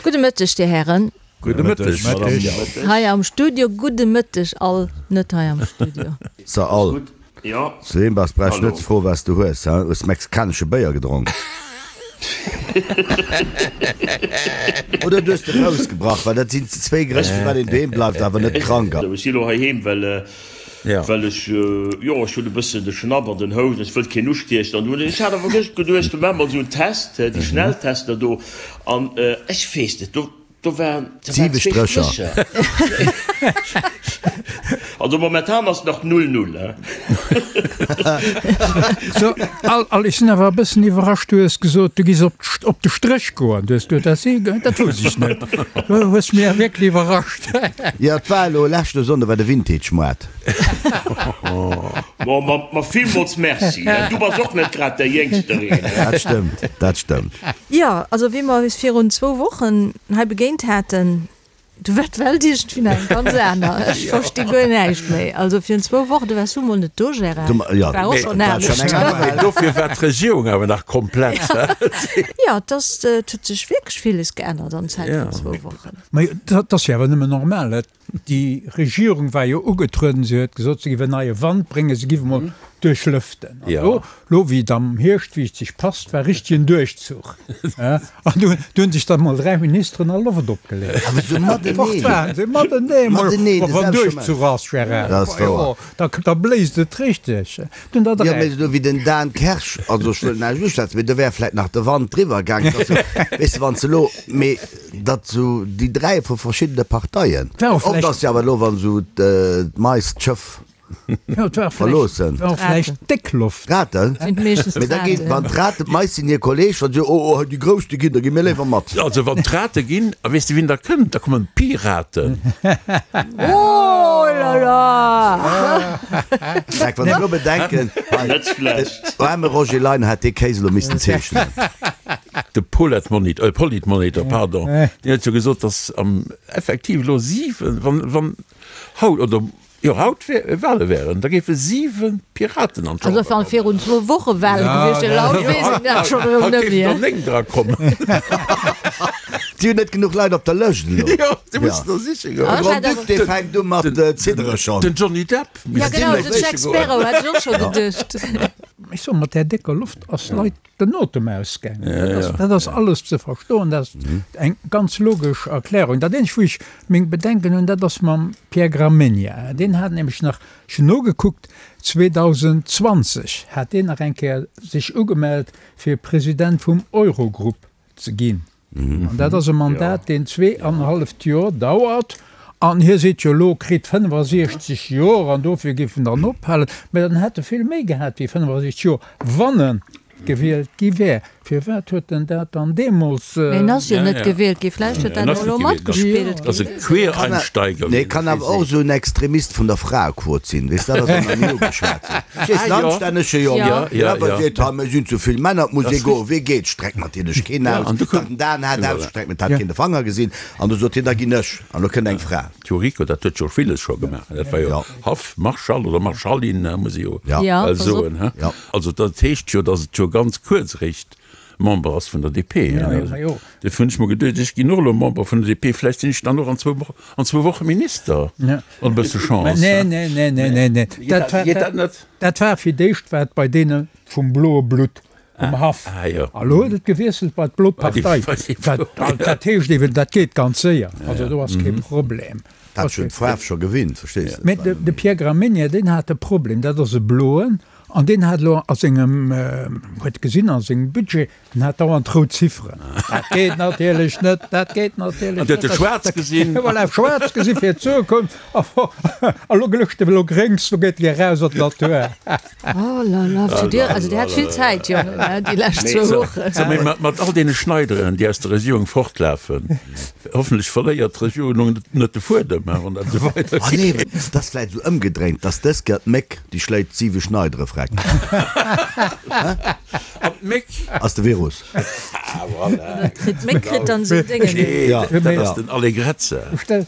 Gudde Mëtteg, Dir Hären. Gudde Mëtteg, Madame Jauch. Hei am Studio. Gudde Mëtteg all net hei am Studio. So all. Zu deem bass brauch ech net ze froen, wat s du hues, he? Hues mexikanesche Béier gedronk? Oder du hues de Fouss gebrach, well dat sinn zwéi Grënn, firwat een doheem bleift, awer net krank ass. Ech si lo heiheem, well Well ech, jo, ech hunn e bëssen de Schnapp an den Housen, ech wëllt keen ustiechen. An dunn, ech hat awer gëscht geduecht, do maache mer esou en Test, déi Schnelltester do. An ech weess net, do, do waren, do waren zwee Strécher. Also momentan ass nach null null, he. So, Al, Al, ech sinn awer e bëssen iwwerrascht, du hues gesot, du giss op, op de Stréch goen. Du hues gesot, dat si, dat wousst ech net. Du hues mir wierklech iwwerrascht. Jo, et war elo leschte Sonnde war de Vintage-Moart. Bon, ma, ma villmools Merci. Du bass och net grad däi Jéngstereen. Dat stëmmt, dat stëmmt. Jo, also wéi mer eis virun zwou Wochen hei begéint haten, du war d'Welt iergendwéi nach eng ganz aner. Ech versti guer näischt méi. Also virun zwou Wochen, du waars du mol net do, Gérard, war och schonn anescht. Mee dofir war d'Regierung awer nach komplett. Jo, et ass, et huet sech wierklech villes geännert an Zäit vun zwou Wochen. Mä dat ass jo awer nëmmen normal. Déi Regierung war jo ugetrueden, se huet gesot, se géif en neie Wand bréngen, se géif emol duerchlëften. An elo, elo wéi et am Hierscht, wéi et sech passt, war richtegen Duerchzuch. An du hunn sech dann emol 3 Ministeren a Loft opgeleet. Awer esou mateneen. Fort waren se, mateneen emol. Mateneen, de Wann selwechte Duerchzuch ass, Gérard, Dat ass wouer. da, da bléist et richteg. Dunn der Jo, 3. mee esou wéi den Dan Kersch, also ech wëll näischt uschwätzen, mee do wär vläit nach de Wand driwwer gaangen. Dat ass jo, weess de, wann s de elo, mee datt esou déi 3 vu verschiddene Parteien, War och oft vläicht. ass jo awer elo, wann esou d'Mais d'Schëff Jo, et war vläicht, verloossen. war och vläicht déck Loft. Raten? Sind meeschtens Mee da ginn, d'Raten. wann d'Raten, d'Mais sinn hir Kolleg, wann si, oh, oh, déi Grouss, déi ginn, da gi mir léiwer mat. Also wann d'Rate ginn, a weess de wien da kënnt? Da kommen d'Piraten. Oh là là! Dreck, wann ech elo bedenken, hei, Net schlecht. den aarme Roger Leiner hätt dee Kéis elo missten zeechnen. De Poletmonitor, Politmonitor, pardon, deen huet jo gesot, datt am effektiv elo 7, wann, wann haut oder jo haut Wale wären, da géife 7 Piraten an Also d'Chamber wann kommen. virun zwou Woche Wale gewiescht wieren, haut weess een dat schonn erëm Haut net géifen der méi. 9 dra kommen. Si hunn net genuch Leit op der Lëscht elo. Jo, si mussen der siche goen. De Grand-Duc, dee fänkt u mat ziddere schonn. Den Johnny Depp Ja misst genau, vläicht den Jack siche goen. Sparrow hätt ech och scho geduecht. Ech soen, mat där décker Loft ass Leit den Otem ausgaangen. Dat ass, dat ass alles ze verstoen, dat ass eng ganz logesch Erklärung. Dat eenzegt, wou ech meng Bedenken hunn, dat ass mam Pierre Gramegna. Deen hat nämlech nach, ech hunn nogekuckt, 2020 hat deen nach eng Kéier sech ugemellt, fir President vum Eurogrupp ze ginn. An dat ass e Mandat, deen zweeanenhalleft Joer dauert. An hie seet jo elo, kritt 65 Joer an dofir géif en dann ophalen. Mä dann hätt e vill méi gehat wéi 65 Joer, wann e gewielt gi wär. Firwat huet en dat dann deemools. Mä en ass jo net gewielt gi. Vläicht huet dat och elo matgespillt. Dat ass e Quereinsteiger. Nee, kann awer och esou en Extremist vun der Fraequot sinn, weess, dat ass och nach ni ugeschwat sinn. Ech weess, en anstännege Jong, deen awer seet, ha mir sinn ze vill Männer, et muss ee goen. Wee geet? Streckt natierlech keen aus. Den Dan hat ausgestreckt, mee et hat keen de Fanger gesinn. An du sot hien, da ginn ech. An lo kënnt eng Fra. D'Yuriko, dat huet jo villes scho gemaach. Dat war jo Haff-Marschall oder Marschallin, muss ee jo bal soen. Also dat heescht jo, datt et jo ganz kuerz eréischt Member ass vun der DP. Dofir hunn ech mer geduecht, ech ginn och elo Member vun der DP, vläicht sinn ech dann och an zwou Woche Minister, mat e bësse Chance. Nee, nee, nee, nee, nee, nee. Geet dat net? Dat war fir d'éischt war et bei deene vum bloe Blutt um Haff. A lo huet et gewiesselt bei d'blo Partei. Dat heescht eeben, dat geet ganz séier. Also do ass kee Problem. Dat huet d'Faarf scho gewinnt, verstees de. Mä de Pierre Gramegna, deen hat e Problem, dat ass e Bloen, an deen hat elo a sengem, huet gesinn a sengem Budget, En hat dauernd rout Zifferen. Dat geet natierlech net, dat geet natierlech net. An huet e schwaarz gesinn. Voilà, schwaarz gesinn fir d'Zukunft. A lo glëscht e elo gréngs, lo geet e eraus an d'Natur. Oh la la, zu dir, also dir hat vill Zäit, Jongen, déi lescht zwou Wochen. So, mee mat all deene Schneideren, déi aus der Regierung fortlafen, hoffentlech verléiert d'Regierung net de Fuedem, wann dat esou weidergeet. Ah nee, et ass vläicht esou ëmgedréint, dass dës Kéier d'Méck déi schléit siwe Schneidere freck. d'Méck. Ass de Virus. Ah, voilà. D'Méck kritt dann esou Déngen. Nee, dat ass den Allegrezza. Stell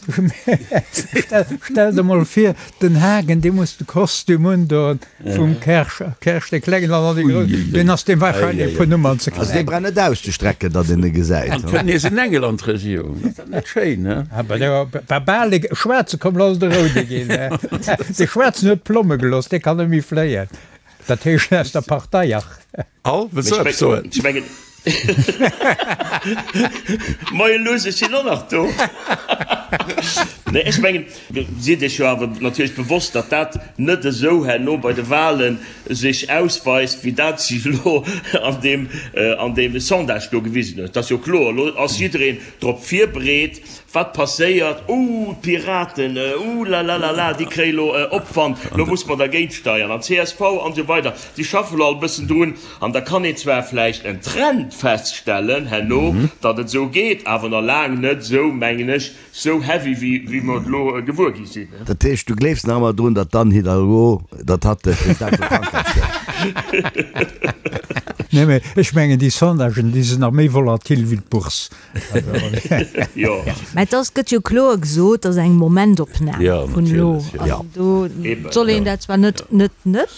der mol vir, den Hagen, dee muss de Kostüm undoen vum Kersch, Kersch dee Klengen an dann dee Groussen. Deen ass deem wahrscheinlech e puer Nummern ze Also dee kleng. brauch net auszestrecken, datt een e gesäit. An kënnt nees en Engel an d'Regierung. Ass dat net schéin, he? Awer dee war bal e Schwaarze komm, lo ass et e Roude ginn. De Schwaarzen huet d'Plomme gelooss, dee kann net méi fléien. Dat heescht aus der Partei, ach. Al, wëlls du eppes soen? Ech mengen, Moie Luss, ech sinn och nach do. Nee, ech mengen, Sidd Iech jo awer natierlech bewosst, datt dat net esou herno bei de Wahlen sech ausweist, wéi dat sech elo an deem, an deem Sondage do gewisen huet. Dat ass jo kloer. Elo ass jiddereen drop virbereet, wat passéiert. Ouh, d'Piraten, ouh lalalala, déi kréie elo Opwand, elo muss mer dergéint steiern. An csv an esou weider, déi schaffe elo all e bëssen drun. An da kann een zwar vläicht en Trend feststellen herno, datt et esou geet, awer nach laang net esou, mengen ech, Sou heavy wéi mer et elo gewuer gi sinn. Dat heescht, du gleefs nach ëmmer drun, datt d'Anne Hidalgo, datt hatt de President vu Frankräich gëtt? Nee, mee ech mengen, déi Sondagen, déi sinn nach méi volatil wéi d'Bourse. Jo. Mä et ass, gëtt jo kloer gesot, et ass eng Momentopnam vun elo. An do soll een dat zwar net, net, net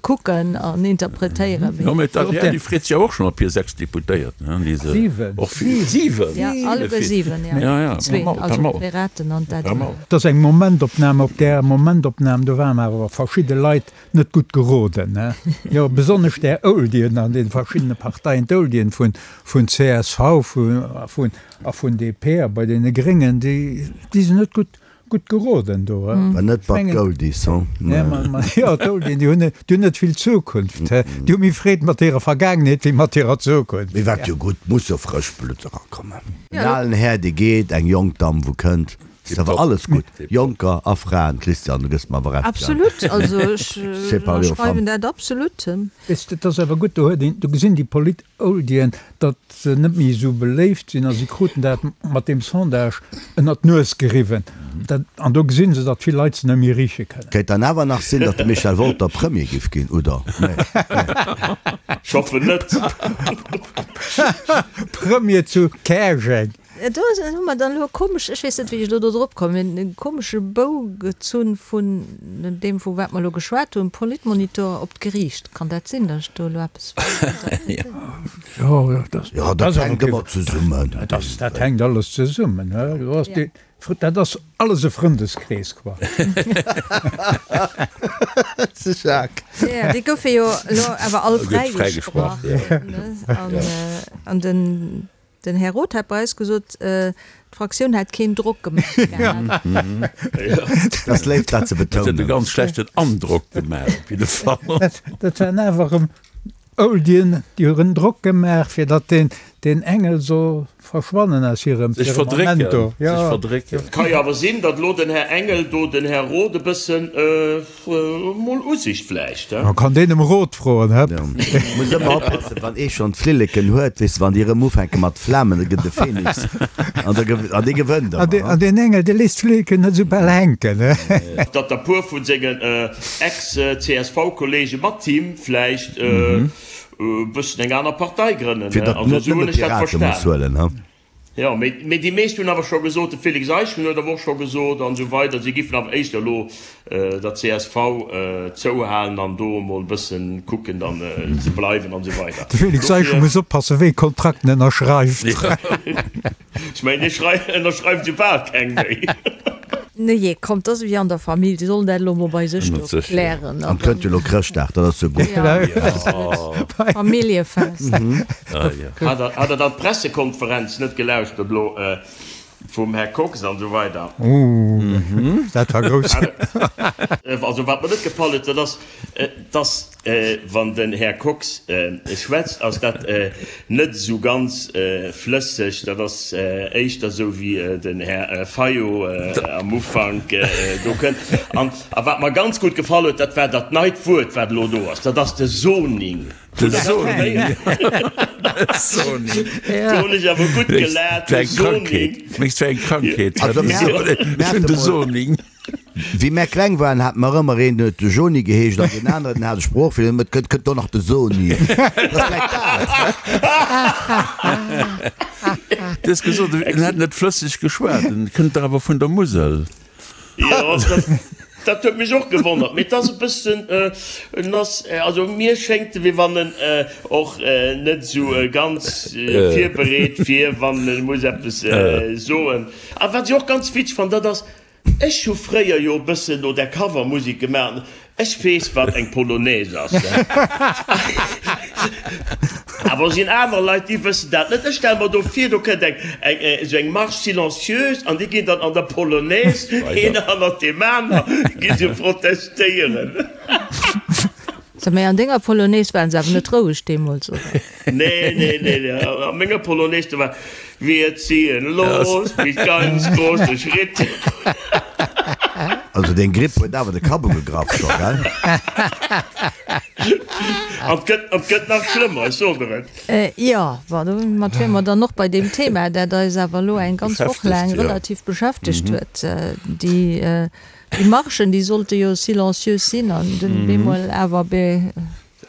kucken an interpretéieren, mee. Jo, mee d'ADR, déi freet sech jo och schonn op hir 6 Deputéierten, hein, déi se och vill, 7! Jo, alleguer 7, jo. Ja, ja, Zwee, also d'Piraten an d'ADR. Et ass eng Momentopnam. Op där Momentopnam, do waren awer verschidde Leit net gutt geroden, ne? Jo, besonnesch där Oldien an de verschiddene Parteien, d'Oldien vun, vun csv, vun, a vun, a vun DP a bei deene Gréngen, déi, déi sinn net gutt, gutt geroden do. War net bei d'Oldies, hu? Nee, ma, ma, jo, d'Oldien, déi hunn net, déi hunn net vill Zukunft, he? Déi hu méi Freed mat hirer Vergaangenheet wéi mat hirer Zukunft. Mee wat jo gutt, muss jo frëscht Blutt erakommen. En alen Här, dee geet, eng jonk Damm, wou kënnt. Ass awer alles gutt, Jonker a Fraen. Christian, du gëss mer awer Recht, gell? Absolut, also ech ënnerschreiwen dat absolut. Weess de, et ass awer gutt, do huet een, do gesinn déi Polit-Oldien, datt se net méi esou beléift sinn a si kruten dat mat deem Sondage ënnert d'Nues geriwwen. Dat, an do gesinn se, datt vill Leit se net méi riche kënnen. Kéint dann awer nach sinn, datt de Michel Wolter Premier giff ginn, oder? Nee, nee. Ech hoffen net. Premier zu Käerjeng. Do hu mer dann elo e komesch, ech weess net, wéi ech elo do drop kommen, e komesche Bou gezunn vun deem, vu wat mer elo geschwat hunn, Politmonitor op d'Geriicht. Kann dat sinn, datt ech do elo eppes falsch interpretéieren? Jo, dat Jo, dat hänkt ëmmer zesummen. Dat hänkt alles zesummen. Dat ass alles e Frëndeskrees, quoi. De Jacques. Jo, déi goufe jo elo awer all fräigesprach. An den Den Här Roth hat bei eis gesot, d'Fraktioun hätt keen Drock gemaach gehat. Dat ass léif, dat ze Dat huet e betounen. ganz schlechten Androck gemaach, op jidde Fall. Dat waren awer erëm Oldien, déi hunn Drock gemaach, fir datt deen Engel soll verschwannen aus hirem Sech verdrécken, Firmament do. sech verdrécken. Et ka jo awer sinn, datt elo den Här Engel do den Här Roth e bëssen Mol Usicht vläicht, he? Man kann deen em Rot froen, hëpp. Muss ëmmer oppassen, wann ee schonn d'Flilleken huet, weess de, wann déi erëm ufänke mat flamen, da gëtt e Phoenix an da an dee gewënnt An ëmmer. an deen Engel, dee léisst d'Flilleken net esou bal hänken, he. Datt der puer vu sengen Ex-CSV-Kollege mat him vläicht e bëssen eng aner Partei grënnen, Fir he? datt Also net esou nëmme hunn ech dat d'Pirate muss verstan. huelen, he. Jo, mee déi meescht hunn awer scho gesot, de Félix Eischen huet awer och scho gesot an esou weider, si giffen awer éischter elo der csv zouhalen an do emol e bëssen kucken dann ze bleiwen an esou weider. De Félix Eischen muss oppassen, wéi e Kontrakt en ënnerschreift. Ech mengen, dee ënnerschreift esou bal keng méi. Nujee, kommt, dat ass ewéi an der Famill, déi sollen dat elo mol bei sech do klären. An et kënnt jo elo Chrëschtdag, dat ass jo gutt. Familljefest. Hat Der dann d'Pressekonferenz net gelauschtert elo vum Här Kox an esou weider? Dat war grouss. Also wat mer net gefall huet, dat ass, dass wann den Här Kox schwätzt, ass dat net esou ganz flësseg. Dat ass éischter esou wéi den Här Fayot am Ufank do kënnt. An a wat mer ganz gutt gefall huet, dat war dat neit Wuert, wat elo do ass, dat ass de Zoning. De Zoning. Zoning. Do hunn ech awer gutt gelaacht, de Zoning. Mengs du eng Krankheet? Ech hunn de Zoning. Wéi mär kleng waren, hate mer ëmmer een, deen huet de Joni geheescht an deen aneren, deen hat e Sproochfeeler, deen huet kënnt, kënnt do nach de Soni. Dat ass vläicht dat. Du hues gesot, en hätt net flësseg geschwat, en kënnt dach awer vun der Musel. Jo, dat huet mech och gewonnert, mee et ass e bëssen, en ass, also mir schéngt e wéi wann en och net esou ganz virbereet wier, wann e muss eppes soen. A wat ech och ganz witzeg fannen, dat ass, Ech hu fréier jo e bëssen no där Covermusek gemaach an ech weess wat eng Polonaise ass. Awer sinn aner Leit déi wëssen dat net. Ech stelle mer do vir, do kënnt eng eng esou eng Marche silencieuse an déi ginn dann an der Polonaise een hannert deem aner gi se protestéieren. So, mee an denger Polonaise waren se awer net roueg deemools, oder? Nee, nee, nee, nee. A menger Polonaise, do war Wir ziehen los mit ganz große Schritt. Also deng Gripp huet awer de Kapp ugegraff scho, gell? An et gëtt, an et gëtt nach schlëmmer, ech soen der et. Jo, bon, domat wiere mer dann och bei deem Thema, dat eis awer elo eng ganz Woch laang relativ beschäftegt huet, déi, déi Marchen, déi sollte jo silencieux sinn an dunn bemol awer be.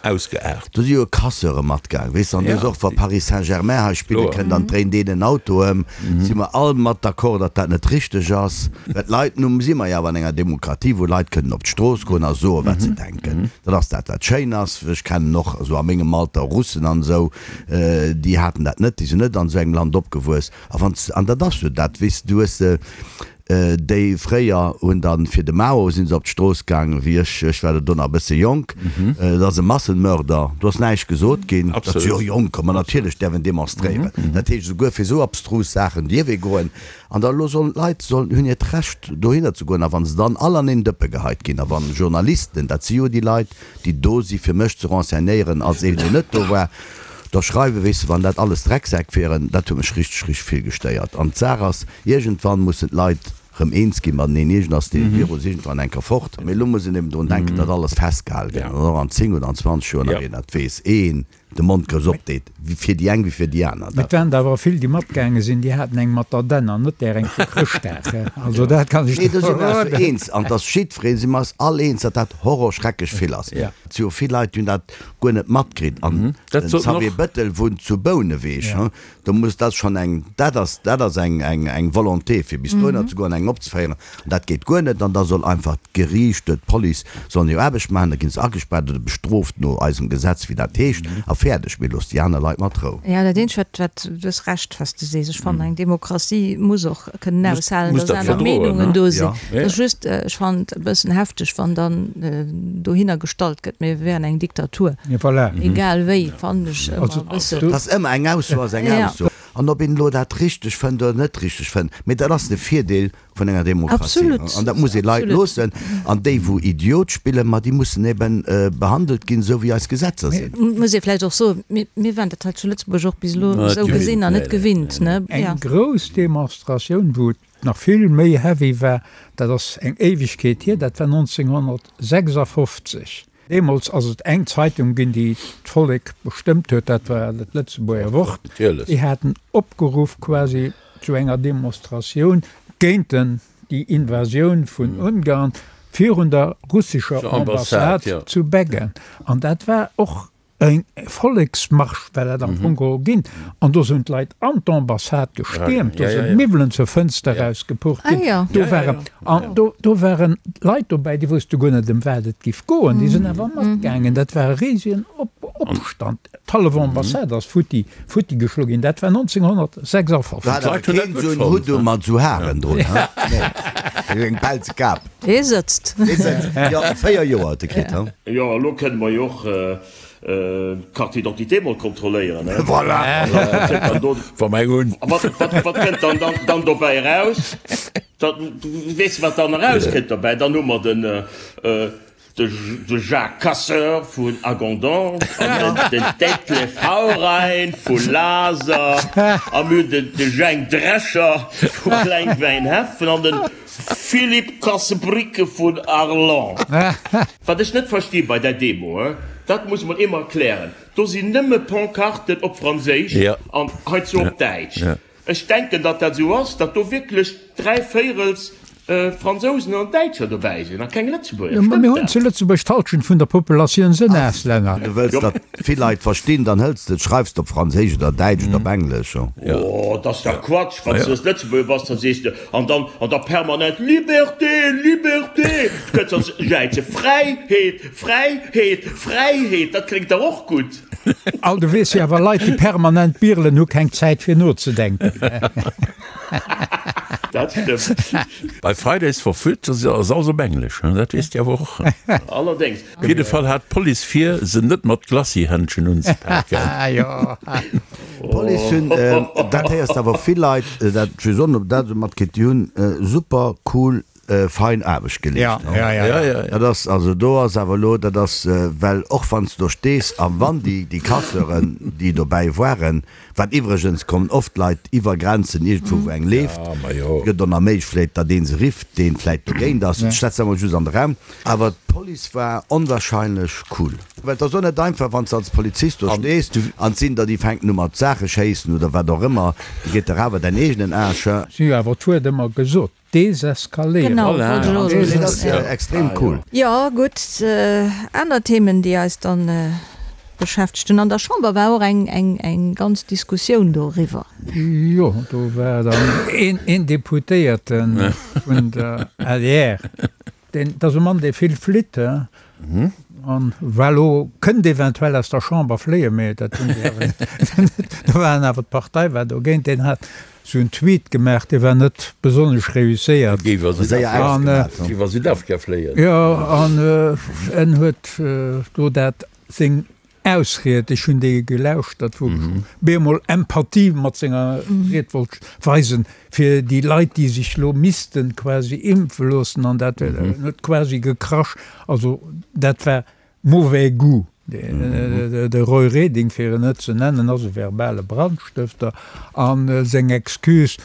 Ausgeaart. Do si jo Casseure matgaang, weess de, an do ass och, wa Paris Saint-Germain hei spille kënnt an dréint een en Auto ëm, si mer all mat d'accord, datt dat net richteg ass. Well d'Leit, nu si mer jo awer an enger Demokratie, wou Leit kënnen op d'Strooss goen a soen, wat se denken. Dat ass dat, wat schéin ass. Ech kennen och esou a mengem Alter Russen an esou, déi haten dat net, déi sinn net an esou engem Land opgewuess. A wann s, an dat ass jo dat, weess de, du hues, Déi fréier hunn dann fir de Mao sinn se op d'Strooss gaangen, wéi ech, ech war do nach e bësse jonk, et ass e Massenmörder, do ass näischt gesot ginn, dat si jo Jonker, ma natierlech däerf en demonstréieren. Dat heescht esouguer fir esou abstrus Saachen dierf ee goen. An da elo sollen d'Leit sollen, hunn hiert Recht dohinner ze goen a wa se dann all an een Dëppe geheit ginn a wann Journalisten, dat si jo déi Leit, déi do si fir mech ze renseignéieren als een deen net do war, da schreiwen, weess de, wann dat alles Drecksäck wieren, dat huet mech richteg, richteg vill gestéiert. An d'Saach ass, iergendwann mussen d'Leit rëm eens gi mateneen, iergend ass dee Virus iergendwann eng Kéier fort. Mee elo muss een eben drun denken, datt alles festgehal gëtt an och an 10 oder an 20 Joer nach een dat weess, een de Mond grouss opdeet, fir déi eng wéi fir déi aner. Mee et waren der awer vill, déi matgaange sinn, déi haten eng mat der Dänn an net där eng vu Chrëschtdag. Also dat kann ech Nee, do si mer eis jo eens an et ass jiddwereen, si mer eis all eens, datt dat horrorschrecklech vill ass. Et si jo vill Leit, déi hunn dat guer net matkritt an den Xavier Bëttel wunnt zu Bouneweg, do muss dat schonn eng, dat ass, dat ass eng, eng, eng Volonté fir bis dohinner ze goen, eng opzeféieren an dat geet guer net an da soll einfach d'Geriicht, d'Police sollen hir Aarbecht maachen, da ginn se agespaart oder bestrooft no eisem Gesetz, wéi dat heescht a fäerdeg, mee loosst déi aner Leit mat Rou. Jo, dat eenzegt wat, wat, du hues Recht wat s de sees, ech fannen eng Demokratie muss och kënnen aushalen, dass aner Meenungen do sinn. Et ass just, ech fannen et e bëssen hefteg, wann dann dohinner gestallt gëtt, mir wären eng Diktatur. Egal wéi, fannen ech ëmmer e bëssen. Et ass ëmmer eng Ausso ass eng Ausso. An ob een elo dat richteg fënnt oder net richteg fënnt, mee dat ass de Virdeel vun enger Demokratie. An dat muss ee Leit loossen. An déi, wou Idiot spillen, ma déi mussen eben behandelt ginn, esou wéi eis Gesetzer sinn. Et muss ee vläicht och soen, mir waren dat hei zu Lëtzebuerg och bis elo esou gesinn an net gewinnt. Eng grouss Demonstratioun, wou et nach vill méi heavy war, dat ass eng Éiwegkeet hier, dat war 1956. Deemools ass et eng Zeitung ginn, déi d'Vollek bestëmmt huet, dat war dat Lëtzebuerger Wort. Déi haten opgeruff quasi zu enger Demonstratioun géint den, déi Invasioun vun Ungarn virun der russescher Ambassade zu Beggen. An dat war och E Volleksmarsch war dat am Fong geholl ginn. An do sinn d'Leit an d'Ambassade gestiermt, do sinn d'Miwwelen zur Fënster erausgepucht ginn. Do waren, an do, do waren Leit dobäi, déi wousste guer net, ëm wat et giff goen. Déi sinn awer matgaangen. Dat war e risegen Opstand. D'hallef Ambassade ass futti, futti geschloe ginn. Dat war 1956. Do hat awer keen esou en Hutt u mat esou Haren drun, he? Nee, eng pelze Kap. Dee sëtzt. Dee sëtzt, jo, 4 Joer huet e kritt, he? Jo, elo kënne mer jo och d'Carte d'identité mol kontrolléieren, he? Voilà! Wat kënnt dann do, Wa mer eng hunn. wat, wat, wat kënnt dann, dann, dann dobäi eraus? Da, weess de, wat dann erauskënnt dobäi? Dann hu mer den, de, de Jacques Casseur vun Hagondange an den, den Detlef Haurein vu Laser a mir hunn den, de Jhang Drescher vu Klengwäinheffen an den Philippe Kassebricke vun Arlon. Wat ech net versti bei där Demo, dat muss mol ee mer erklären, do sinn nëmme Pancarten op Franséisch an heizou op Däitsch. Ech denken, datt dat esou ass, datt do wierklech dräivéirels. Fransousen an Däitscher dobäi sinn a keng Lëtzebuerger. Jo, mä mir Stëmmt hunn dat? zu Lëtzebuerg d'Halschent vun der Populatioun sënn Auslänner. Du wëlls, datt vill Leit verstinn, dann hëls de et, schreifs de op Franséisch oder Däitsch oder op Englesch. Oh, dat ass dach Quatsch! Wann s de Lëtzebuerger bass, da sees de, an dann, an da permanent Liberté, Liberté! Du kënns dann jäize Fräiheet, Fräiheet, Fräiheet! Dat kléngt dach och gutt. Al, du weess jo awer, Leit, déi permanent birelen, hu keng Zäit fir nozedenken. Dat stëmmt. Bei Fridays for Future ass alles op Englesch, dat weess Dir awer och. Allerdéngs. Op jidde Fall hat d'Police vir, se net mat Glacis-Händschen unzepaken. D'Police hunn, dat héiers de awer vill Leit, dat just och nach, dat esou matkritt, déi hunn super cool, fein Aarbecht geleescht. Dat ass, also do ass awer elo, dat ass, well och wann s de do stees a wann déi, déi Casseuren, déi dobäi waren, Wat iwwregens kommen oft Leit iwwer Grenzen iergendwou wou eng leeft, et gëtt och nach méiglech vläit datt ee se rifft deen vläit dogéint ass, ech setzen emol just an de Raum, awer d'Police war onwahrscheinlech cool. Well et ass och net einfach wann s de als Polizist do stees an et sinn der déi fänken u mat Saache schéissen oder wat och ëmmer, da geet der awer däin eegenen Aarsch. Si hu awer d'Wuert ëmmer gesot, Deseskaléieren. Genau, wollt ech och elo soen. Dat ass extrem cool. Jo, gutt, aner Themen, déi eis dann beschäftegt hunn. An der Chamber war och eng ganz Diskussioun doriwwer. Jo, do war dann een Deputéierte vun der adr, deen, dat ass e Mann, dee vill flitt, an war elo, kënnt eventuell aus der Chamber fléien, mee dat hunn déi awer net, do waren awer, d'Partei war dogéint, deen hat Sou en Tweet gemaach, dee war net besonnesch reusséiert. Géif a Südafrika fléien. Jo, an en huet do dat seng Ausried, ech hunn déi gelauschtert, wou ech bemol Empathie mat senger Ried wollt weisen, fir déi Leit, déi sech lo missten quasi impfe loossen, an dat en huet quasi gekrasch. Also dat war Mauvais goût. De Roy Reding, fir en net ze nennen, ass e verbale Brandstëfter a seng Excuse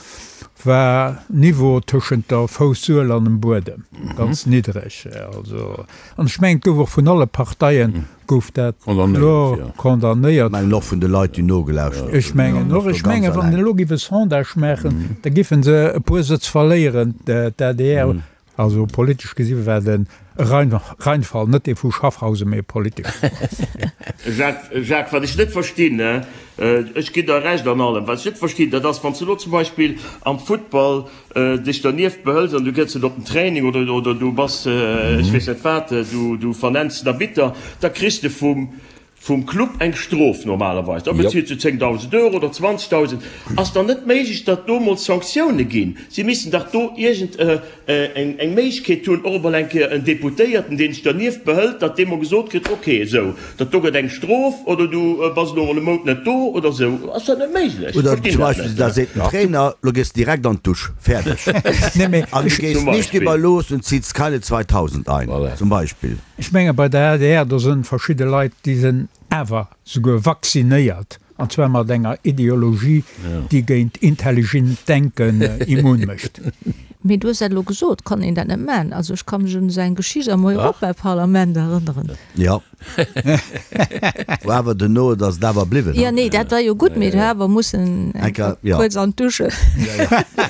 war Niveau tëschent der Foussuel an dem Buedem, ganz niddreg. Also, an ech mengen, et gouf och vun alle Parteie gouf dat kloer condamnéiert. Ech mengen och vun de Leit, déi nogelauschtert hunn. Ech mengen och. Ech mengen, wann elo géif e Sondage maachen, da géife se e puer Sëtz verléieren, d'ADR. Also politesch gesi war et e Reinfall, net dee vu Schaffhausen, mee e politeschen. Jacques, Jacques, wat ech net verstinn, ech ginn der Recht an allem, wat ech net verstinn, dat ass, wann s de elo zum Beispill am Futtball dech dernieft behëls an du gëss net op den Training oder, oder du bass, ech weess net wat, du, du vernenns den Arbitter, da kriss de vum, Vum Club eng Strof normalerweis, da bezilt se 10.000 Euro oder 20.000. Ass dann net méiglech, datt do mol Sanktioune ginn? Si missten dach do iergend eng Méiglechkeet hunn, och emol eng Kéier en Deputéierten, deen sech dernieft behëlt, datt dee mol gesot kritt, ok, esou, dat do gëtt eng Strof oder du bass elo mol e Mount net do oder esou. Ass dat net méiglech? Oder Verstinn zum dat Beispill, net. da seet den Trainer, lo gees de direkt an d'Dusch, fäerdeg. An du gees Zum nicht Beispill. über los und ziehst keine 2.000 ein, zum Beispill. Ech menge bei der adr, do sënn verschidde Leit, déi sënn awer souguer vaccinéiert, an zwar mat enger Ideologie, déi géint intelligent Denken immun mécht. Mee du hues dat elo gesot, kann een dat net maachen? Also ech ka mech un esou eng Geschicht am Europaparlament erënneren. Jo. Wou awer duerno, et ass et awer bliwwen. Jo, nee, dat war jo gutt, mee du awer mussen eng Kéier kuerz an d'Dusche.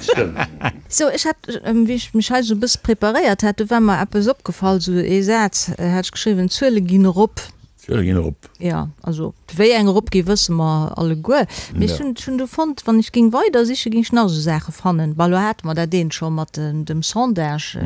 Stëmmt. Sou, ech hat, wéi ech mech hei sou e bësse preparéiert hat, do war mer eppes opgefall, sou ee Saz hat ech geschriwwen, D'Zuele ginn erop. D'Zuele ginn erop. Jo, also wéi eng eropgi wësse mer alleguer. Mee ech hunn, ech hunn du fonnt, wann ech géing weider sichen, géing ech nach esou Saache fannen. Bon, elo hate mer dat eent scho mat dem Sondage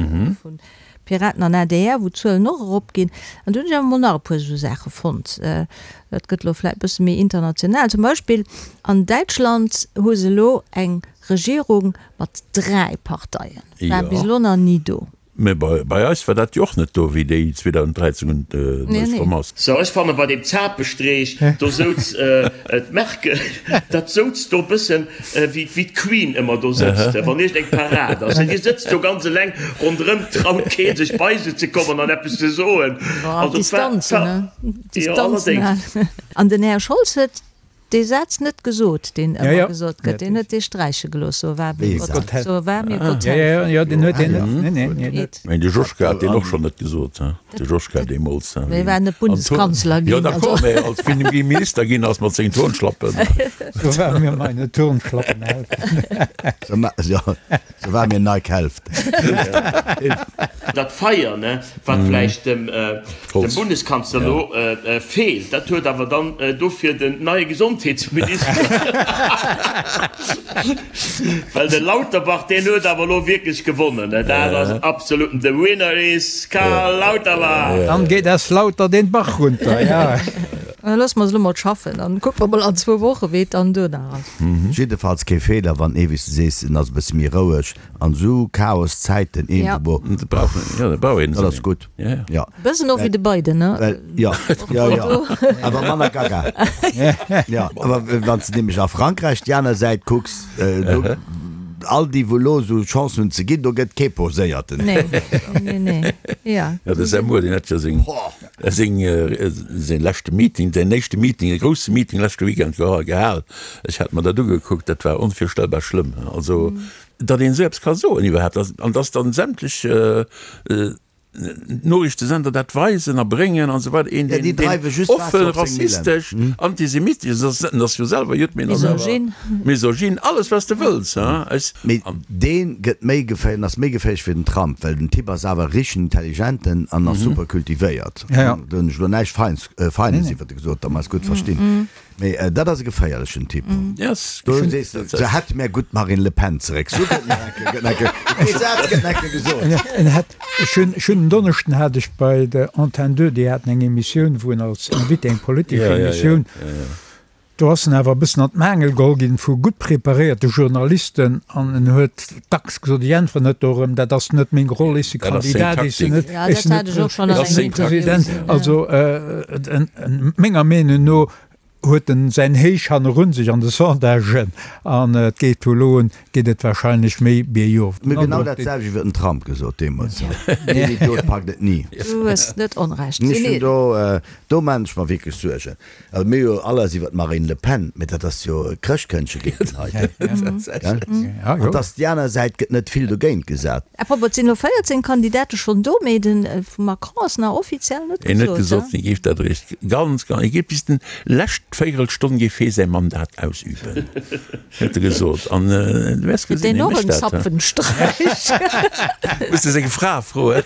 vu Piraten an adr, wou d'Zuelen och eropginn. An du hunn ech awer mol nach e puer esou Saache fonnt. Dat gëtt elo vläicht e bësse méi international. Zum Beispill an Däitschland hu se elo eng Regierung mat 3 Parteien. War bis elo nach ni do. Mä bei eis war dat jo och net do, wéi déi 2013 un d'Nuecht komm ass. So, ech fanne bei deem Zapestreech, do souz d'Merkel, dat souz do bëssen wéi d'Queen ëmmer do sëtzt, wann iergend eng Parad ass. Déi sëtzt do ganz eleng ronderëm, traut kee sech bei se ze kommen an eppes ze soen. Distanzen, ne? Distanzen halen. An den Här Scholz huet. dee Saz net gesot, deen ëmmer gesot gëtt. Deen huet dee sträiche gelooss, So wahr mir Gott, so wahr mir Gott helfe. Jo, deen huet deen net, nee, nee, nee, net. Mä de Joschka hat deen och schonn net gesot, he? De Joschka deemools, he? Mee e war net Bundeskanzler ginn. Jo, d'accord, mä als wéi en Minister ginn ass mat sengen Turnschlappen. So wahr mir meine Turnschlappen helfen. Jo, so wahr mir Nike helft. Dat Feier, ne, wat vläicht dem Bundeskanzler elo feelt, dat huet awer dann dofir den neie Gesondheetsminister. Well de Lauterbach, deen huet awer elo wierklech gewonnen, ne, dat ass absoluten, the winner is Karl Lauterbach! Dann geet es lauter den Bach runter, ja. Loosse mer se elo mol schaffen, dann kucke mer mol an zwou Woche wéi et dann duerno ass. Jiddefalls kee Feeler, wann ee, wéi s de sees, en ass e bësse méi roueg An sou Chaos Zäiten eenbo. Dat ass gutt. Jo. Bëssen och wéi de Biden, ne? Well, jo, jo, jo. Awer manner gaga. Jo, awer wann s de nämlech a Frankräich déi aner Säit kucks, do, all déi wou elo sou Chancen hunn ze ginn, do gëtt kee Poséierten. Nee, nee, nee, ja. Jo, de Zemmour, deen hätt jo seng, seng, säin leschte Meeting, säin éischte Meeting, e grousse Meeting leschte Weekend gehal. Ech hat mer dat ugekuckt, dat war onvirstellbar schlëmm. Also, Datt een esou eppes ka soen iwwerhaapt, an datt dann sämtlech Noriichtesender dat weisen a bréngen an esou weider, een deen offen rassistesch, antisemitesch ass, en ass jo selwer Judd, mee en ass awer misogyn, alles wat s de wëlls. Mee dee gëtt méi geféierlech, ass méi geféierlech wéi den Trump, well den Typ ass awer e richtegen Intelligenten an ass super kultivéiert. Do hunn ech elo näischt Feines iwwert e gesot, datt mer eis gutt verstinn. Mee dat ass e geféierlechen Typ. Do sees de, se hätt mär gutt d'Marine Le Pen zeréck. Sou gëtt nach eng Kéier, gëtt nach eng Kéier, dee Saz gëtt nach eng Kéier gesot. En hätt, ech hunn, ech hunn en Donneschden hat ech bei der Antenne 2, déi haten eng Emissioun, wou en als Invité, eng politesch Emissioun, do ass en awer e bëssen an d'Maangel geholl ginn vu gutt preparéierte Journalisten an en huet dacks gesot, ech äntweren net dorëm, dat ass net meng Roll, ech si Kandidat, ech sinn net, ech sinn net President. Also menger Meenung no huet en säin Héich hannerun sech an de Sondagen an et geet vu elo un geet et wahrscheinlech méi biergof. Mir hu genau dat selwecht iwwer den Trump gesot deemools. Deen Idiot packt et ni. Du hues net Onrecht. Ech hunn do, do maan ech mer wierklech Suergen. Also mir hu jo all eis iwwer d'Marine Le Pen, mee dat ass jo e Chrëschtkëndche géint den heiten. Gell? An dass déi aner Säit gëtt net vill dogéint gesat. À propos, et sinn elo 14 Kandidate schonn do, mee de vum Macron ass nach offiziell net En huet gesot, gesot, hie géif dat eréischt ganz, ganz, hie géif bis den lescht Véierelstonn géif hie säi Mandat ausüben, huet e gesot. An du wäers Kritt gesinn, deen hie och mécht en dat. Zapfenstreich? Muss de seng Fra froen.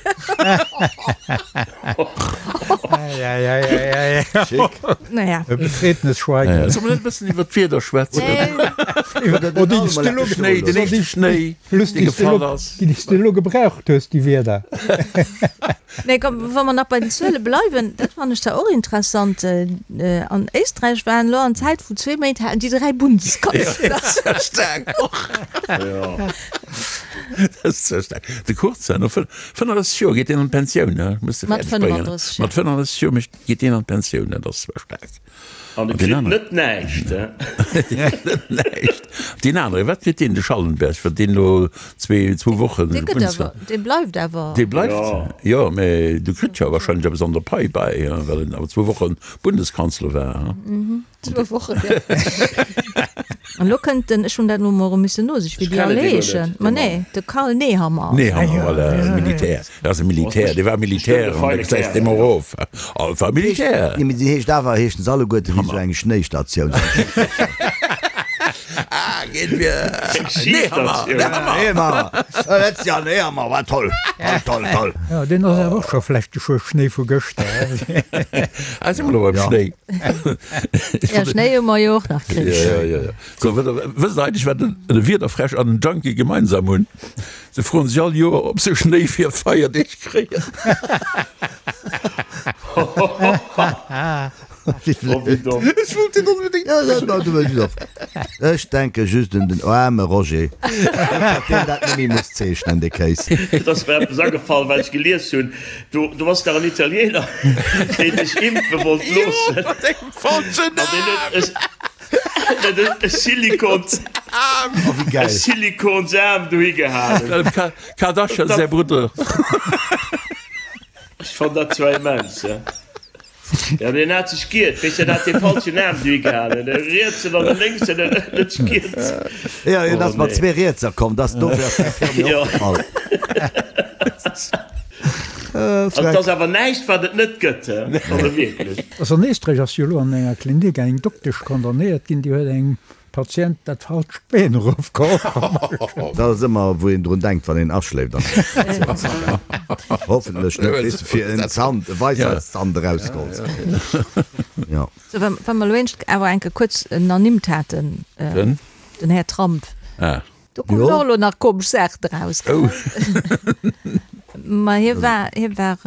Naja. E betretenes Schweigen. Solle mer net e bëssen iwwer d'Wieder schwätzen? Den Schnéi, den éischte Schnéi, dee gefall ass. Déi s de elo gebraucht hues, déi Wierder. Nee, komm, wa mer nach bei den Zuele bleiwen, dat fannen ech zwar och interessant, An Éisträich waren elo an Zäit vun zwee Méint haten déi 3 Bundeskanzler. Dat ass ja staark och. Dat ass ja staark. De Kurz, no 35 Joer geet deen an d'Pensioun, ne? Muss de Mat fäerdeg bréngen. 35, ja. Mat 35 Joer mécht, geet deen an d'Pensioun, dat ass zwar staark. An e kritt net näischt, he? Net näischt. Deen anere, wat kritt deen, de Schallenberg, wat deen elo zwee, zwou Wochen Dee gëtt awer, dee bleift awer. Dee bleift? Jo, mä du kritt jo wahrscheinlech eppes an der Pai bäi, well en awer zwou Woche Bundeskanzler war, he? Zwou Wochen, jo. An elo kënnt den, ech hunn dat elo mol erëm missen nosichen, wéi déi all heeschen. Ma nee, de Karl Nehammer. Nehammer, voilà, Militär. Dat ass e Militär, dee war Militär an da gesäis de emol erof. Oh, war Militär. Nee, mee déi heescht awer, heeschen se alleguerte wéi sou eng Schnéistatioun. Ah, geet mir. Nehammer, Nehammer. Nehammer, letztes Jahr Nehammer, war toll, toll, toll, toll. Jo, deen ass awer och scho vläicht de Schuer Schnéi vu gëschter. Ah, si mer elo beim Schnéi. Ja, Schnéi hu mer jo och nach kritt. Ja, ja, ja. So, wësst der eigentlech, wat e Wiederfräsch an en Junkie gemeinsam hunn? Se froen sech all Joer, ob se Schnéi fir Feierdeeg kréien. Ech wollt deen onbedéngt. Ech denke just un den aarme Roger, datt deen dat net méi muss zeechnen, dee Kéis. Et ass mer eppes agefall, wat ech gelies hunn. Do, do ass dach en Italiener, deen sech impfe wollt loossen. Jo, mat engem falschen An deen Aarm. huet e, e Silikons, Oh, wéi e gäil. Silikonsaarm dohi gehalen. Dem Ka Kardashian säi Brudder. Ech fann dat zwar immens, ja. Jo, deen hat sech giert, weess de, deen hat dee falschen Aarm dohi gehalen, de rietsen an de lénksen, en huet sech giert. Jo, hien ass mat zwee Rietser komm, dass dofir ass däi Firmi opgefall. Also et ass awer näischt, wat et net gëtt, he? Also wierklech. Also an Éisträich ass jo elo an enger Klinik eng Doktesch condamnéiert ginn, déi huet engem Patient dat falscht Been erofgeholl. Dat ass ëmmer wou een drun denkt wann een aschléift an der Operatiounssall. Hoffentlech net, weess de, fir en Zant, e Weisheitszant erausgeholl ze kréien. Jo. Sou, wa wa mer elo eent awer eng Kéier kuerz en ernimmt haten, Den? den Här Trump. Ah. Do kommen och elo nach komesch Saachen eraus, gell? Ma hie war, hie war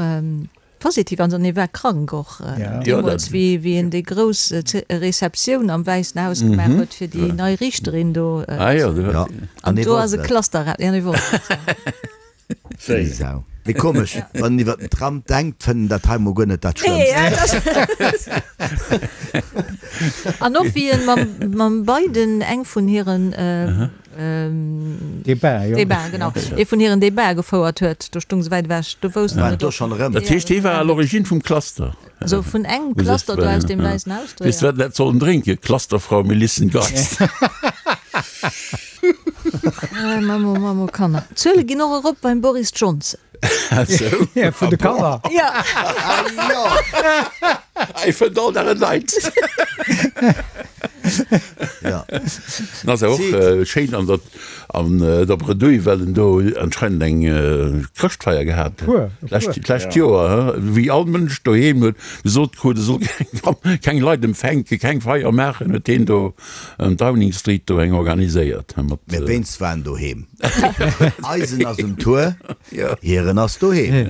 positiv an hie war krank och deemools, wéi wéi en déi grouss Receptioun am Wäissen Haus gemaach huet fir déi nei Riichterin do. An do ass e Cluster eraus, jo, hie wosst et, jo. Wéi Sau. Mee komesch, wann een iwwer den Trump denkt, fënnt en dat hei mol guer net dat Schlëmmst. An och wéi en mam, mam Biden eng vun hiren Debat, jo. Debat, genau, ee vun hiren Debatë gefouert huet, do stung se wäit ewech, do wousst en War et do och. schonn erëm. Dat heescht, hie war à l'origine vum Cluster. Also vun engem Cluster do aus dem Wäissen Haus do, Weess de ja. wat en hätt sollen drénken? Clusterfrau Melissengeist. Mammo, Mammo, Kanner. D'Zuele ginn och erop beim Boris Johnson. Sou? Ja, vun de Kanner. Ja. Hei fënnt all Dag en Neits. Ja. En ass awer och schéin an der, an der Bredouille, well en do anscheinend eng Chrëschtfeier gehat huet. D'lescht, d'lescht Joer, wéi all Mënsch doheem huet gesot krut, e soll keng, keng Leit empfänken, keng Feier maachen, huet hien do an Downing Street do eng organiséiert mat. Mä wéinst war en doheem. Eisen ass um Tour, hiren ass doheem.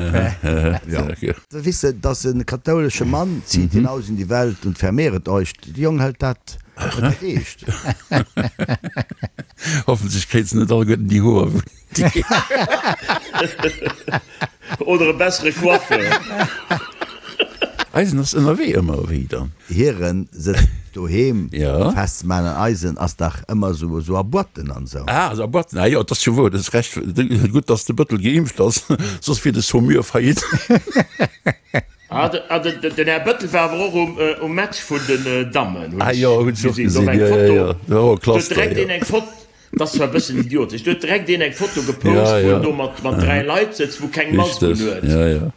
Jo. Wisse, dass e kathoulesche Mann zieht hinaus in die Welt und vermehret euch. De Jong hëlt dat huet dat eescht. Hoffentlech kréit se net alleguerten déi Hoer wou déi. Oder e bessere Coiffeur. Eisen ass ënnerwee ëmmer wéi dann. Hiren sëtzt doheem Ja. festzemaan an eisen ass dach ëmmer sou sou a Boîten an sou. Ah, a Boîten, ah jo, et ass jo wouer, du hues Recht, gutt dass de Bëttel geimpft ass, soss wier de Saumur faillite. Ah, den Här Bëttel war awer och um Match vun den Dammen, hunn Ah ech jo, hunn ech och gesinn. Do war gesinn, eng jo, jo, Foto, jo, do war och e do huet Cluster, direkt jo. een eng Foto, dat ass zwar e bëssen idiotesch, do huet direkt een eng Foto gepost, Ja, wou ja. en do mat 3 Leit sëtzt, wou keng Mask un Richteg, huet. ja, ja.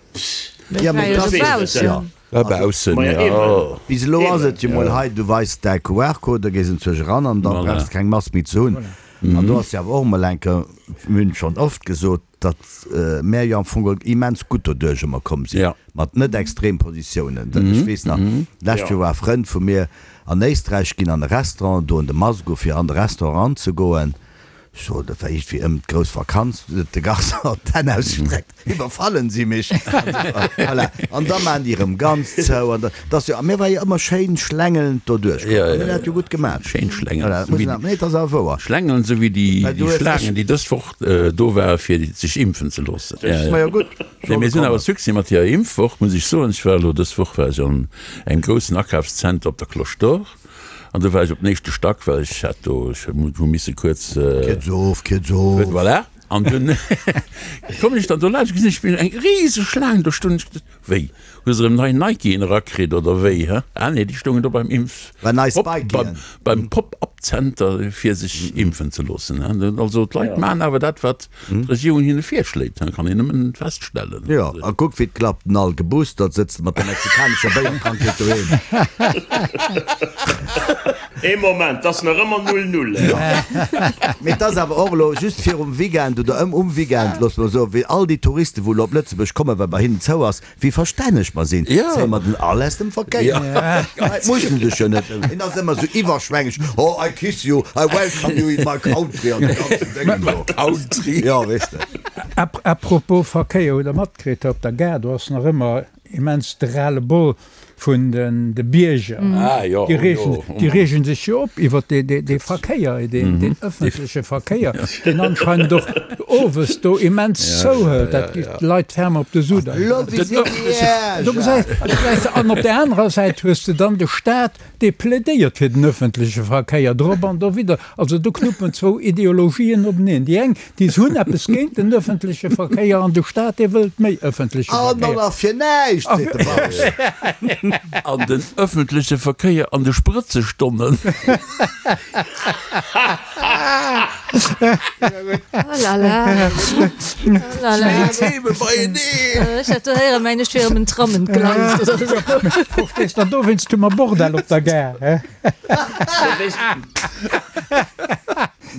Ja, mee Ech dat weess net, jo. War baussen, Maja, jo. eben. Bis elo ass Eben. et jo mol hei, du weis däi QR-Code, da gees en zuech eran an da Voilà. brauchs de keng Mask méi ze hunn. An do ass jo awer och mol eng Kéier, mir hunn et schonn oft gesot, datt mär jo am Fong geholl immens gutt doduerch ëmmer komm sinn, mat net extrem Positiounen. Ech weess nach, d'lescht Joer war e Frënd vu mir an Éisträich, ginn an e Restaurant, doen de Mask u fir an de Restaurant eranzegoen. Ech sot, dat war iergendwéi ëm d'grouss Vakanz, huet de Garçon d'Hänn ausgestreckt, Iwwerfallen si mech? Voilà. An da maachen déi erëm ganz zou. An da, dat ass jo, a mir war jo ëmmer schéin schlängelnd doduerch komm. A mir hunn dat jo gutt gemaach. Schéin schlängelnd. Voilà, dat muss een, nee, dat ass awer wouer. Schlängelnd, esou wéi déi, Well du déi hues, ech. Schlaangen, déi dës Woch do ware fir sech impfen ze loossen. Majo gutt, Nee, mir sinn awer Succès mat hirer Impfwoch, muss ech soen. Ech war elo dës Woch war ech an engem groussen Akafszenter op der Cloche d'Or an do war ech op den éischte Stack, well ech hat do, ech hu misse kuerz. Kierz of, kierz of. Voilà. An dunn kommen ech dann do laanscht, gesinn ech eng riseg Schlaang do stoen. Ech gesot, Wéi, hu se erëm nei Nikeen erakritt oder wéi, hä? Ah nee, déi stoungen do beim Impf, War nei Pop, Spikeen. beim Pop-up-Zenter fir sech impfen ze loossen, hä? Also d'Leit maachen awer dat, wat d'Regierung hinne virschléit, hä? Kann een nëmmen feststellen. Jo, a kuck wéi et klappt, den all geboostert sëtzt mat der mexikanescher Béierkrankheet doheem. Ee Moment, 't ass nach ëmmer null null. Mee 't ass awer och elo just virum Weekend oder ëm um Weekend, loosse mer soen, wéi all déi Touristen, wou elo op Lëtzebuerg kommen, well bei hinnen zou ass, wéi verstänneg mer sinn, zéie mer den all aus dem Verkéier. D'Leit mussen sech jo net, en ass ëmmer esou iwwerschwängeg, oh I kiss you, I welcome you in my country an dee ganzen Déngen do. Country. Jo, weess de. À propos Verkéier, hutt Der matkritt, op der Gare, do ass nach ëmmer immens de Ras-le-bol vun de Bierger. Déi reegen sech jo op iwwer dee Verkéier, deen ëffentleche Verkéier, deen anscheinend och owes do immens zouhëlt. Dat geet d'Leit ferme op de Sudder. Do gesäis de, an op där anerer Säit hues de dann de Staat, dee plädéiert fir den ëffentleche Verkéier, drop an dowidder. Also do knuppen zwou Ideologien openeen. Déi eng, déi hunn eppes géint den ëffentleche Verkéier an de Staat, dee wëllt méi ëffentleche An Verkéier. och nach fir näischt, seet de Bausch. An den ëffentleche Verkéier an de Sprëtzestonnen. Oh la la. Oh la la. Theme beieneen. Ech hat do héieren, mengen ech wier ëm en Tram entgleist oder esou. Verstees der, dowéinst hu mer Bordell op der Gare, he?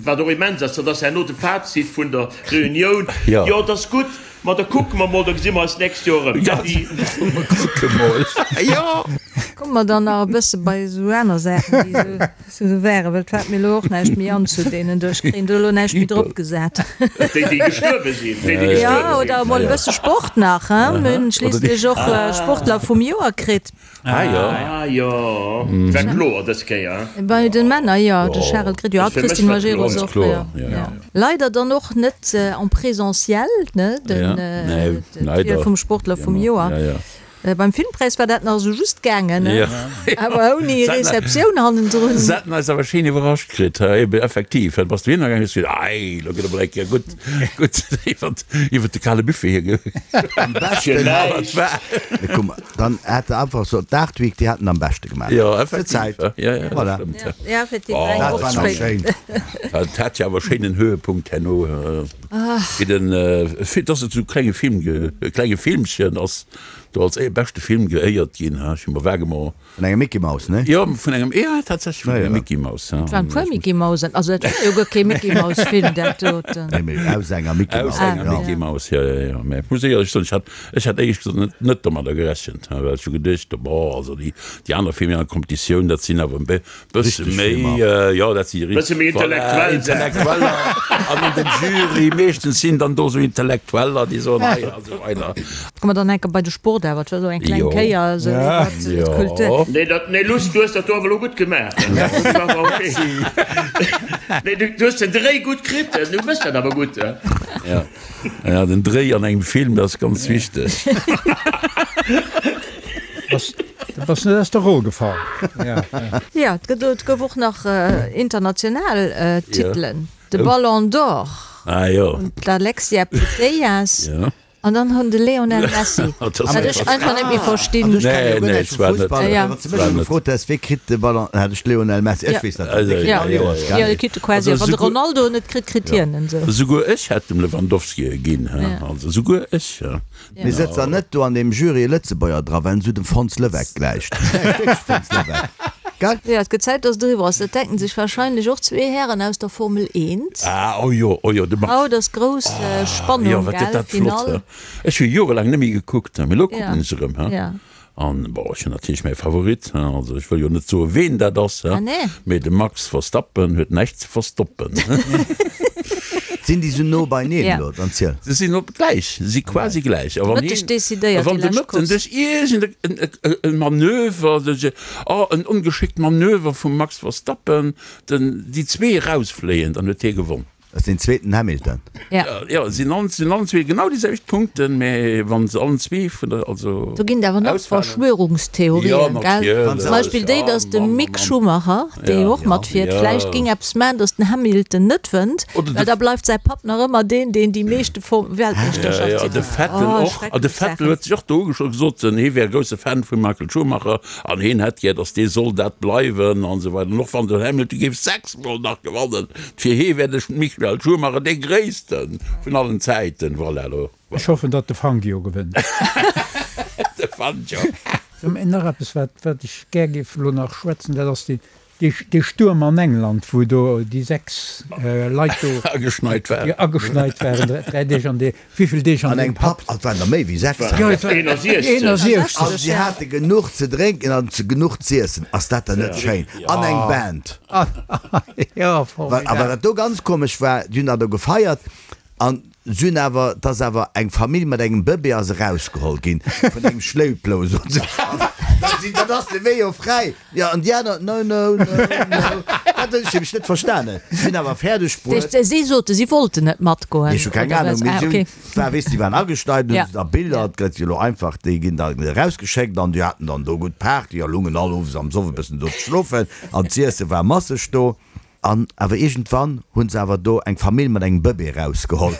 Wat och immens ass, dat ass herno de Fazit vun der Reunioun, Jo, et ass gutt, ma da kucke mer mol, da gesi mer eis d'nächst Joer erëm. Äddi. Mer kucke mol, jo. Komme mer dann nach e bësse bei esou aner Saachen, déi esou waren, well et fält mir elo och näischt méi an zu deenen do. Ech kréien do elo näischt méi drop gesat. Déi, déi gestuerwe sinn, déi, déi gestuerwe sinn. Jo, oder emol e bësse Sport nach, hein. Mir hunn schliisslech och Sportler vum Joer kritt. Ah jo. Ah jo, war kloer dës Kéier. Bei den Männer jo, de Charel Gret jo, a d'Christine Majerus och, jo. Leider dann och net en présentiel, ne, den d'Wiel vum Sportler vum Joer. Beim Filmpräis war dat nach esou just gaangen, ne, awer ouni Receptioun hannendrun. Se haten eis awer schéin iwwerrascht kritt, eben effektiv, bass du hinnergaangen, hues gesot, ei, lo gëtt emol eng Kéier gutt, gutt iwwert, iwwert de kale Buffet hier ge. Am beschten, Dann hätt de einfach so d'Art Week, déi haten am beschte gemaach. Jo, effektiv. Zäit. Ja, ja, Voilà. stimmt. Ja, effektiv, eng Dat Woch war nach spéider. schéin. Dat hat jo awer schéinen Höhepunkt herno, wéi den, dass et sou klenge Film, e klenge Filmchen ass do als beschte Film geéiert ginn, ha, ech hu mer vaguement. Vun engem Mickey Mouse, ne? Jo, vun engem, jo, tatsächlech vun engem Mickey Mouse. Et waren e puer Mickey Mousen, also dat war jo guer kee Mickey Mouse Film, dat doten. Nee, mee aus enger Mickey Mouse. Aus enger Mickey Mouse, jo, jo, jo. Mä ech muss éierlech soen, ech hat, ech hat éierlech gesot net, net domadder gerechent, well ech hu geduecht, bon, also déi, déi aner Filmer an der Competitioun, dat sinn awer e Bësse méi, jo, dat si Bësse méi intellektuell. Intellektueller an an dem Jury meeschtens sinn dann do sou Intellektueller, déi soen hei a sou weider. Komme mer dann enke bei de Sport awer, et war sou eng kleng Kéier sou iwwert d'Kultur. Nee, dat, nee Luss, du hues dat do awer elo gutt gemaach. Dat war awer ok. Nee, du hues den Dréi gutt kritt, du méchs dat awer gutt. Ja, ja, den Dréi an engem Film, dat ass ganz wichteg. Du bass net aus der Roll gefall. Jo, et gëtt, et gouf och nach international Titelen, de Ballon d'Or un d'Alexia Putellas an dann hunn de Lionel Messi, wat ech einfach net méi verstinn. Also ech kenne jo guer näischt vu Fussball, mä wann s de mech elo gefrot häss, wee kritt de Ballon, hätt ech Lionel Messi, ech weess natierlech, dee kritt all Joers, gell? Jo, dee kritt e quasi, wann de Ronaldo en net kritt, kritt hien en esou. Souguer ech hätt dem Lewandowski e ginn, also souguer ech. Mee sëtzt dann net do an deem Jury e Lëtzebuerger dra, well en esou dem Fons Leweck gläicht? Gläicht wierklech Fons Leweck, gell? Jo, et gëtt Zäit, dass et eriwwer ass. Dat denken sech wahrscheinlech och zwee Hären aus der Formel 1. Ah, oh jo, oh jo, de Max. Haut ass grouss Spannung, Jo, wat gëtt gell? dat flott, Finall. he? Ech hu jorelaang net méi gekuckt, mee elo kucken ech erëm, he? Ja. An, bon, ech hunn natierlech mäi Favorit, he? Also ech wëll jo net soen, ween dat ass, he? Ah, nee. Mee de Max Verstappen huet näischt ze verstoppen. Sinn déi sou no beineen Ja. elo, dann ziel. Se sinn op gläich, se si quasi gläich. A wann Mëtteg een, decidéiert a wann déi de lescht Mëtten Course. duerch iergend en, e, e Manöver, duerch e, oh, en ongeschéckt Manöver vum Max Verstappen, den, déi zwee erausfléien, dann huet hie gewonn. Dat ass deen zweeten Hamilton. Ja. Jo, si hunn allen zwee genau déi selwecht Punkten, mä wa se allen zwee vun der, also. Do ginn et awer nach ausfalen. Verschwörungstheorien, gell? Zum Beispill déi, datt de Mick Schumacher, dee jo och matfiert, vläicht géing eppes maachen, datt den Hamilton net wënnt, well da bleift säi Papp nach ëmmer deen, deen déi meeschte Weltmeeschterschafts. Jo, de Vettel och. An de Vettel huet sech och do ugeschloss, gesot, hie wär e grousse Fan vum Michael Schumacher an hien hätt gär, datt dee soll dat bleiwen an esou weider. An och wann den Hamilton géif 6 Mol nach gewannen, fir hie wär de Michael Schumacher dee Gréisste vun allen Zäiten. Voilà, elo. Ech hoffen, datt de Fangio gewënnt. De Fangio. Nach eppes, wat ech gär géif elo nach schwätzen, dat ass dee Stuerm an England, wou do déi 6 Leit do ageschneit waren, ageschneit waren 3 Deeg an dee, wéivill Deeg an engem Pub. Et waren der méi wéi 6. Jo, et waren 61. An si hate genuch ze drénken an genuch z'iessen. Ass dat dann net schéin? An eng Band. Jo, formidabel. A wat do ganz komesch war, déi hunn dat do gefeiert An se hunn awer, et ass awer eng Famill mat engem Bëbee ass erausgeholl ginn vun engem Schléiplou, soen se. Dann sinn, dann ass de Wee jo fräi. Jo, an déi aner, no, no, no, no. Dat hunn ech nämlech net verstanen. Si hunn awer fäerdeg bruet. Si sote si wollten net matgoen, Ech hu keng oder Ahnung, was? mee Ah, si hunn, okay. et war, weess, déi waren agesteit, hunn Ja. se da Biller, et gëtt jo elo einfach, déi ginn da erausgeschéckt an déi haten dann do gutt Party a lungen all owes am Soff e bëssen do ze schlofen an z'iesse war masseg do. An awer iergendwann hunn se awer do eng Famill mat engem Bëbee erausgeholl.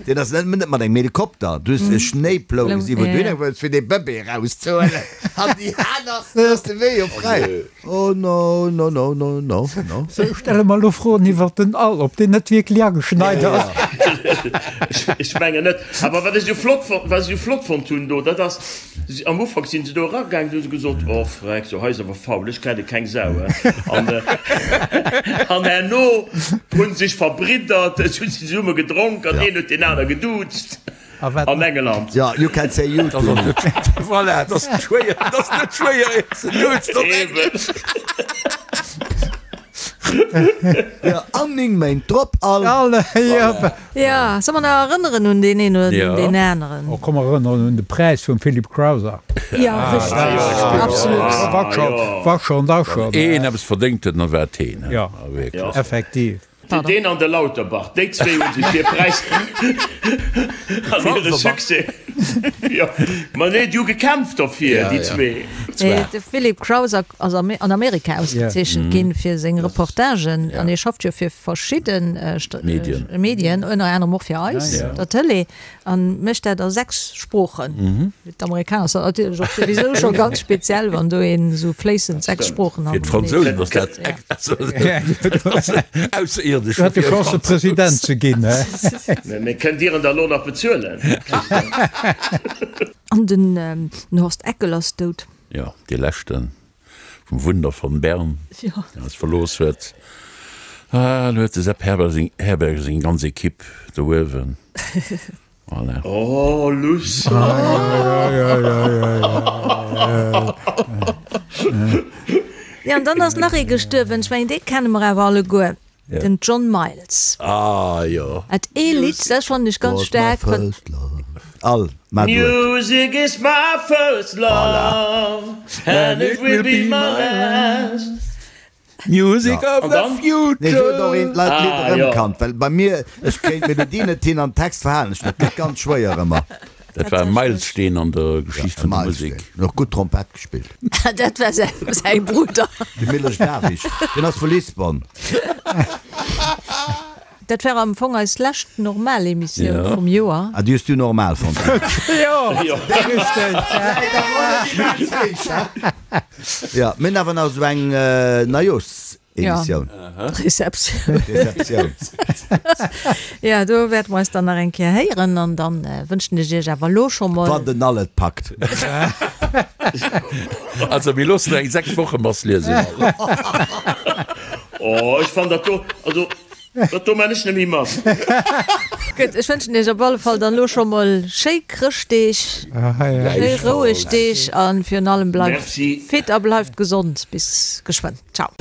Deen ass net net mat engem Helikopter, du hues e Schnéiplou gesi wou du hin wëlls fir dee Bëbee erauszehuelen an déi aner ass de Wee jo fräi. Oh no, no, no, no, no, no. Sou, stelle mer elo Froen iwwert den All, ob deen net wierklech ageschneit ass. Ech mengen net. Awer wat ech esou flott, wat ech esou flott fonnt hunn do, dat ass, Am Ufank sinn se do eragaangen, hu se gesot, Oh freck, so hei ass awer faul, ech kenne keng Sau. An an herno hunn sech verbriddert, et hunn se zesumme gedronk an een huet deen aner geduuzt an Engeland. Ja, you can say you to me. Voilà, et ass net schwéier, et ass net schwéier een ze duuzen op Englesch. Ja, an 9 Méint drop all. Ja, soll mer nach erënneren un deen een oder un deen aneren? Oh, komm, mer erënneren un de Präis vum Philip Crowther. Ja, richteg, absolut. War scho, war schon, war schon. Wann een eppes verdéngt huet, dann war et heen, he? Ja, wierklech. Effektiv. Deen an de Lauterbach, déi zwee hu sech hir Präis an hire Succès, jo, ma nee, déi hu gekämpft derfir, déi zwee. De Philip Crowther ass an Amerika ausgezeechent ginn fir seng Reportagen an hie schafft jo fir verschidde Medien, ënner anerem och fir eis, der Tëlee, a mécht dat a 6 Sproochen. Fir d'Amerikaner ass dat natierlech och souwisou scho ganz speziell, wann do een esou fléissend 6 Sproochen Fir d'Fransousen ass dat ausserierdesch. Du hätt de Chance President ze ginn, he? Mee kënnt Dir en da lo nach bezuelen? An den Horst Eckel ass dout. Jo, dee leschten. Vum Wunder von Bern, deen eis verlooss huet. Ah, elo huet de Sepp Herberger seng ganz Equipe do uewen. Voilà. Oh, Luss! Jo, an dann ass nach ee gestuerwen, ech mengen, dee kenne mer awer alleguer, den John Miles. Ah, jo. Hat ee Lidd, dat fannen ech ganz staark. All, ma du et. Music is my first love and it will be my last. Music of the future. Nee, sou huet och een d'Leit d'Lidd erëmkannt, well bei mir, ech kréien d'Melodie net hin an Text verhalen ech net, gëtt ganz schwéier ëmmer. Dat war e Meilsteen an der Geschicht vun der Musek. Huet och gutt Trompett gespillt. Dat war säi Brudder. De Miloš Davić, deen ass vu Lisbon. Dat war am Fong eis lescht normal Emissioun vum Joer. Ah, déi hues du normal fonnt? Jo, richteg. Jo, mir hunn awer nach esou eng Neijooschsemissioun. Receptioun. Receptioun. Jo, do wäerte mer eis dann nach eng Kéier héieren an dann wënschen ech iech awer elo scho mol. Wann den All et packt. Also mir loossen eng 6 Woche Mass liesen. Oh, ech fann dat do, also Dat do man ech net méi mat. Gutt, ech wënschen iech op alle Fall dann elo scho mol schéi Chrëschtdeeg, schéi roueg Deeg a virun allem bleift fit a bleift gesond. Bis geschwënn. Ciao.